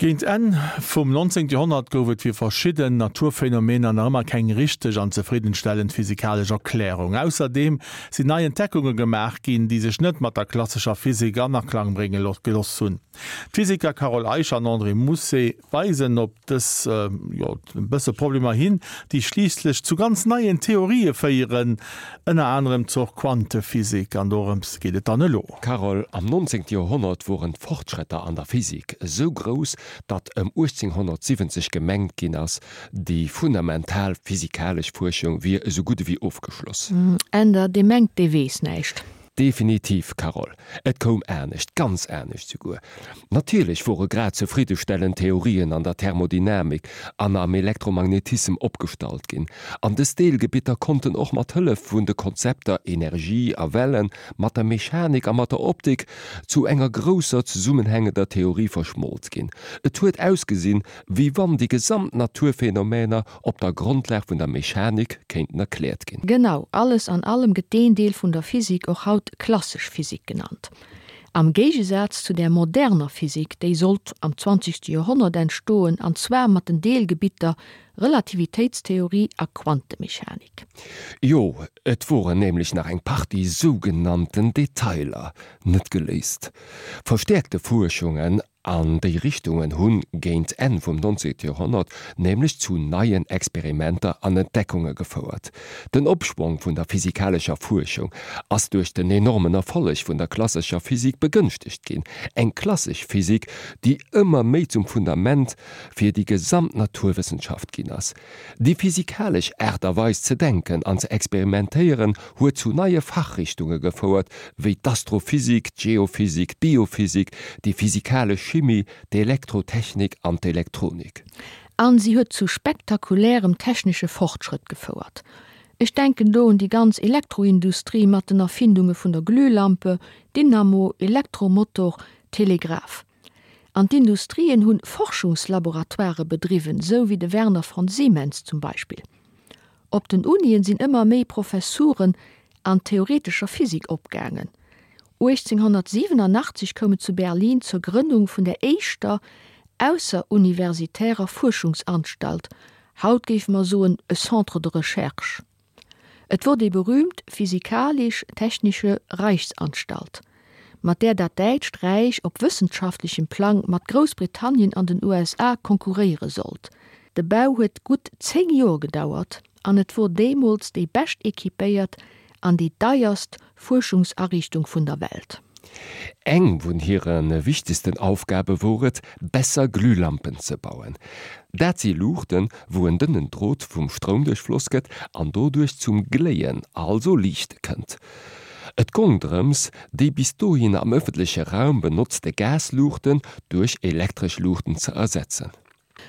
Géint Enn vum 19. Joerhonnert gouf et fir verschidden Naturphänomener nach ëmmer keng richteg an zefriddenstellend physikalesch Erklärung. Ausserdeem sinn nei Entdeckunge gemaach ginn, déi sech net mat der klassescher Physik an Aklang brénge gelooss hunn. D'Physiker Carole Eicher an André Mousset weisen op dës, jo, e bësse Problemer hin, déi schliisslech zu ganz neien Theorië féieren, ënner anerem zur Quantephysik. An dorëms geet et dann elo. Carole, am 19. Joerhonnert woren d'Fortschrëtter an der Physik esou grouss, datt ëm 1870 gemengt ginn ass, déi fundamental physikalesch Fuerschung wier esou gutt ewéi ofgeschloss. Änder, Dee mengt, dee weess näischt. Definitiv, Carole. Et koum anescht, ganz anescht souguer. Natierlech wore grad zefriddestellend Theorien an der Thermodynamik an am Elektromagnetissem opgestallt ginn, an dës Deelgebitter konnten och mat Hëllef vun de Konzepter Energie a Wellen, mat der Mechanik a mat der Optik zu enger grousser zesummenhängender Theorie verschmolt ginn. Et huet ausgesinn, wéi wann déi gesamt Naturphänomäner op der Grondlag vun der Mechanik kéinten erkläert ginn. Genau, alles an allem gëtt deen Deel vun der Physik och haut klassesch Physik genannt. Am Géigesaz zu der moderner Physik, déi sollt am zwanzegste Joerhonnert entstoen, an zwar mat den Deelgebitter Relativitéitstheorie a Quantemechanik. Jo, et woren nämlech nach eng Partie sougenannten Detailer net geléist. Verstäerkte Fuerschungen An déi Richtungen hunn géint Enn vum 19. Joerhonnert nämlech zu neien Experimenter an Entdeckunge gefouert. Den Opschwong vun der physikalescher Fuerschung ass duerch den enormen Erfolleg vun der klassescher Physik begënschtegt ginn, eng klassesch Physik, déi ëmmer méi zum Fundament fir déi gesamt Naturwëssenschaft ginn ass. Déi physikalesch Aart a Weis ze denken an ze experimentéieren huet zu neie Fachrichtunge gefouert, wéi d'Astrophysik, d'Geophysik, d'Biophysik, déi physikalesch Chimie, d'Elektrotechnik an d'Elektronik. An si huet zu spektakulärem technesche Fortschrëtt gefouert. Ech denken do un déi ganz Elektroindustrie mat den Erfindunge vun der Glühlampe, Dynamo, Elektromotor, Telegraph. An d'Industrien hunn Forschungslaboratoire bedriwwen, sou wéi de Werner von Siemens zum Beispill. Op den Unien sinn ëmmer méi Professuren an theoretescher Physik opgaangen. 1887 koum et zu Berlin zur Grënnung vun der éischter ausseruniversitärer Fuerschungsanstalt, haut géife mer soen e Centre de recherche. Et wor déi berühmt Physikalisch-Technische Reichsanstalt, mat där dat Däitscht Räich op wëssenschaftlechem Plang mat Groussbritannien an den USA konkurréiere sollt. De Bau huet gutt 10 Joer gedauert an et wor deemools déi bescht equipéiert an déi deierst Fuerschungsariichtung vun der Welt. Eng vun hire wichtegsten Aufgabe wor et, besser Glühlampen ze bauen. Dat si Luuchten, wou en dënnen Drot vum Stroum duerchfloss gëtt an doduerch zum Gléien, also Liichte kënnt. Et gong drëms, déi bis dohin am ëffentleche Raum benotzte Gasluuchten duerch elektresch Luuchten ze ersetzen.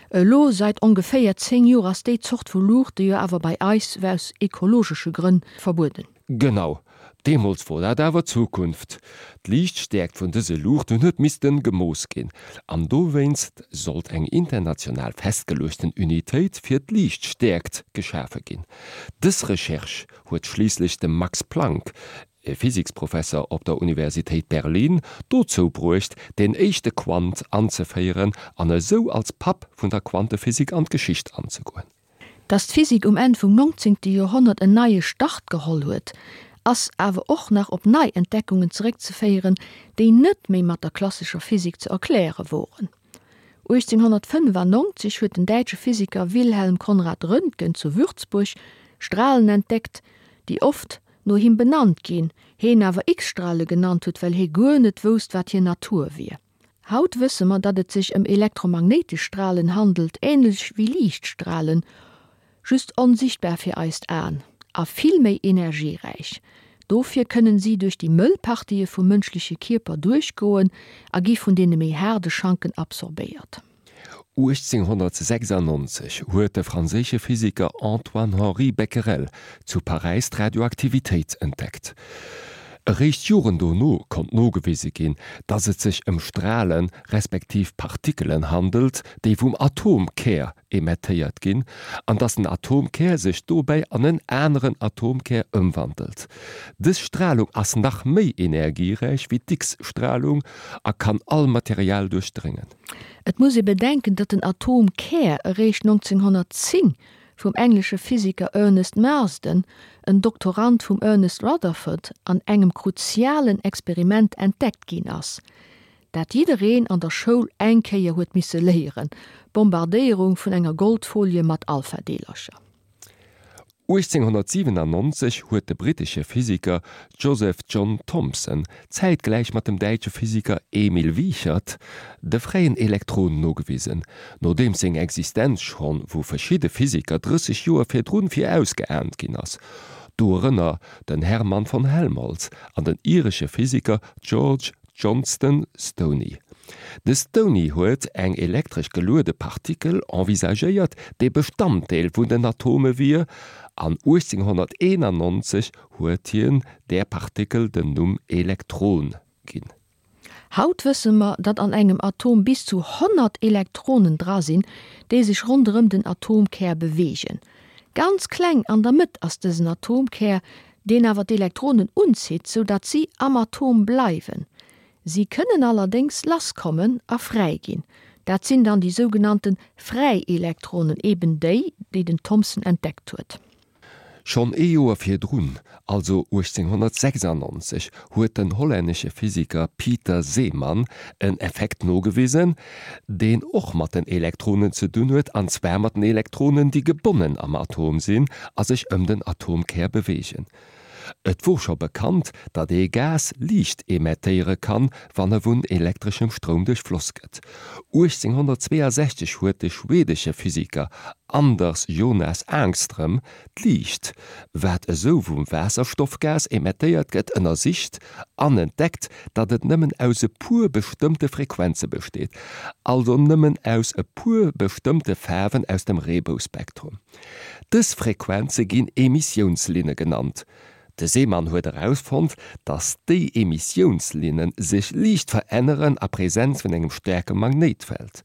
Elo seit ongeféier 10 Joer ass déi Zort vu Luuchte jo awer bei eis aus ekologesche Grënn verbueden. Genau, deemools wor dat awer d'Zukunft. D'Liichtstäerkt vun dëse Luuchten huet missten gemooss ginn, an dowéinst sollt eng international festgeluechten Unitéit fir d'Liichtstäerkt geschafe ginn. Dës Recherche huet schliisslech de Max Planck, e Physiksprofesser op der Universitéit Berlin, dozou bruecht, deen éischte Quant anzeféieren an esou als Papp vun der Quantephysik an d'Geschicht anzegoen. Datt d'Physik um Enn vum 19. Joerhonnert en neie Start geholl huet, ass awer och nach op nei Entdeckungen zeréckzeféieren, déi net méi mat der klassescher Physik ze erkläre woren. 1895 huet den däitsche Physiker Wilhelm Conrad Röntgen zu Würzburg Stralen entdeckt, déi oft no him benannt ginn, heen awer X-Strale genannt huet, well hee guer net wousst, wat hir Natur wier. Haut wësse mer, datt et sech ëm elektromagnéitesch Stralen handelt, änlech wéi Liichtstralen, just onsichtbar fir eist Aen a vill méi energieräich. Dofir kënnen si duerch déi mëll Partië vum mënschleche Kierper duerchgoen a gi vun deene méi haarde Schanken absorbéiert. 1896 huet de franséische Physiker Antoine-Henri Becquerel zu Paräis d'Radioaktivitéit entdeckt. Eréischt Joren dono konnt nogewise ginn, datt et sech ëm Stralen respektiv Partikelen handelt, déi vum Atomkär emettéiert ginn, an datt den Atomkär sech dobäi an en aneren Atomkär ëmwandelt. Dës Stralung ass nach méi energieräich wéi d'X-Stralung a kann all Material duerchdréngen. Et muss ee bedenken, datt den Atomkär eréischt 1910 vum englesche Physiker Ernest Marsden, en Doktorand vum Ernest Rutherford, an engem kruzialen Experiment entdeckt ginn ass, dat jiddereen an der Schoul eng Kéier huet misse léieren, d'Bombardéierung vun enger Goldfolie mat Alphadeelercher. 1897 huet de brittesche Physiker Joseph John Thomson zäitgläich mat dem däitsche Physiker Emil Wiechert de fräien Elektron nogewisen, nodeems seng Existenz schonn vu verschidde Physiker 30 Joer virdrun virausgeaant ginn ass, dorënner den Hermann von Helmholtz an den iresche Physiker George Johnston Stoney. De Stoney huet eng elektresch geluede Partikel envisagéiert, déi Bestanddeel vun den Atome wier, an 1891 huet hien där Partikel den Numm Elektron ginn. Haut wësse mer, datt an engem Atom bis zu 100 Elektronen dra sinn, déi sech ronderëm den Atomkär beweegen. Ganz kleng an der Mëtt ass dësen Atomkär, deen awer d'Elektronen unzitt, sou datt si am Atom bleiwen. Si kënnen allerdéngs lasskommen a fräi ginn. Dat sinn dann déi sougenannte fräi Elektronen, eben déi, déi den Thomson entdeckt huet. Schonn ee Joer virdrun, also 1896, huet den hollännesche Physiker Pieter Zeeman en Effekt nogewisen, deen och mat den Elektronen ze dunn huet, an zwar mat den Elektronen, déi gebonnen am Atom sinn a sech ëm den Atomkär beweegen. Et wor scho bekannt, datt ee Gas Liicht emettéiere kann, wann e vun elektreschem Stroum duerchfloss gëtt. 1862 huet de schweedesche Physiker Anders Jonas Ångström d'Liicht, wat esou vum Waasserstoffgas emettéiert gëtt, ënnersicht an entdeckt, datt et nëmmen aus e puer bestëmmte Frequenze besteet, also nëmmen aus e puer bestëmmte Faarwen aus dem Reebouspektrum. Dës Frequenze ginn Emissiounslinne genannt. De Zeeman huet erausfonnt, datt déi Emissiounslinne sech liicht veränneren a Präsenz vun engem staarke Magnéitfeld.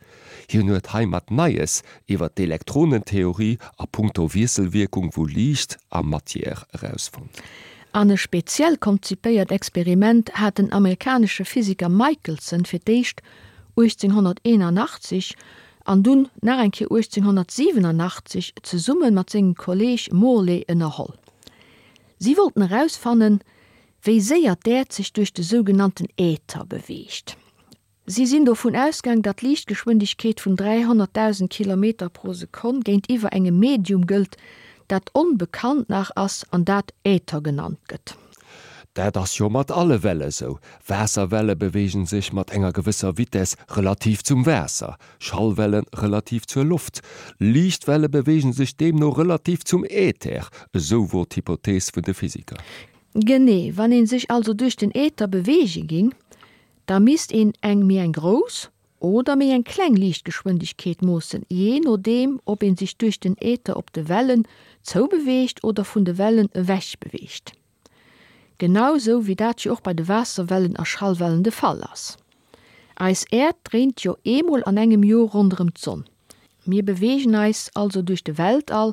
Hien huet heimat Neies iwwer d'Elektronentheorie a punkto Wiesselwierkung vu Liicht a Matière erausfonnt. An e speziell konzipéiert Experiment hat den amerikanesche Physiker Michelson fir d'éischt 1881 an dunn nach eng Kéier 1887 zesumme mat sengem Kolleeg Morley ënnerholl. Si wollten erausfannen, wéi séier d'Äerd sech duerch de sougenannten Äther beweegt. Si sinn dovun ausgaang, datt d'Liichtgeschwindegkeet vun 300.000 Kilometer pro Sekonn géintiwwer engem Medium gëllt, dat onbekannt nach ass an dat Äther genannt gëtt. Dat ass jo mat alle Welle sou. Waasserwelle beweegen sech mat enger gewësser Vitess relativ zum Waasser, Schallwelle relativ zur Loft. Liichtwelle beweegen sech deemno relativ zum Äther, esou wor d'Hypothees vun de Physiker. Genee, wann een sech also duerch den Äther beweege ging, da misst een eng méi eng grouss oder méi eng kleng Liichtgeschwindegkeet moossen, jee nodeem ob een sech duerch den Äther op de Wellen zoubeweegt oder vun de Wellen ewech beweegt. Genau sou wéi dat jo och bei de Waasserwellen a Schallwellen de Fall ass. Eis Äerd dréint jo eemol an engem Joer ronderëm d'Sonn. Mir beweegen eis also duerch de Weltall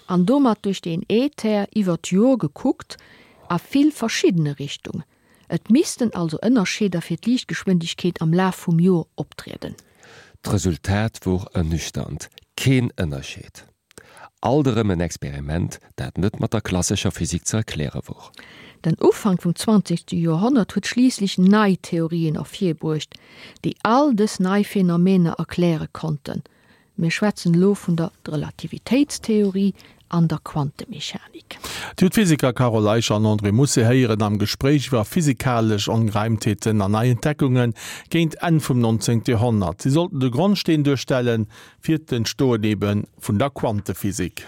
an domat duerch den Äther iwwer d'Joer gekuckt a vill verschiddene Richtunge. Et missten also Ënnerscheeder fir d'Liichtgeschwindegkeet am Laf vum Joer optrieden. D'Resultat wor ernüchternd, keen Ënnerscheed. Alt erëm en Experiment, dat net mat der klassescher Physik ze erkläre wor. Den Ufank vum zwanzegste Joerhonnert huet schliisslech nei Theorien ervirbruecht, déi all dës nei Phänomener erkläre konnten. Mir schwätzen elo vun der Relativitéitstheorie an der Quantemechanik. Dir hutt d'Physiker Carole Eicher an André Mousset héieren am Gespréich iwwer physikalesch Ongereimtheeten an nei Entdeckunge géint Enn vum 19. Joerhonnert. Si sollten de Grondsteen duerstellen fir d'Entstoen ebe vun der Quantephysik.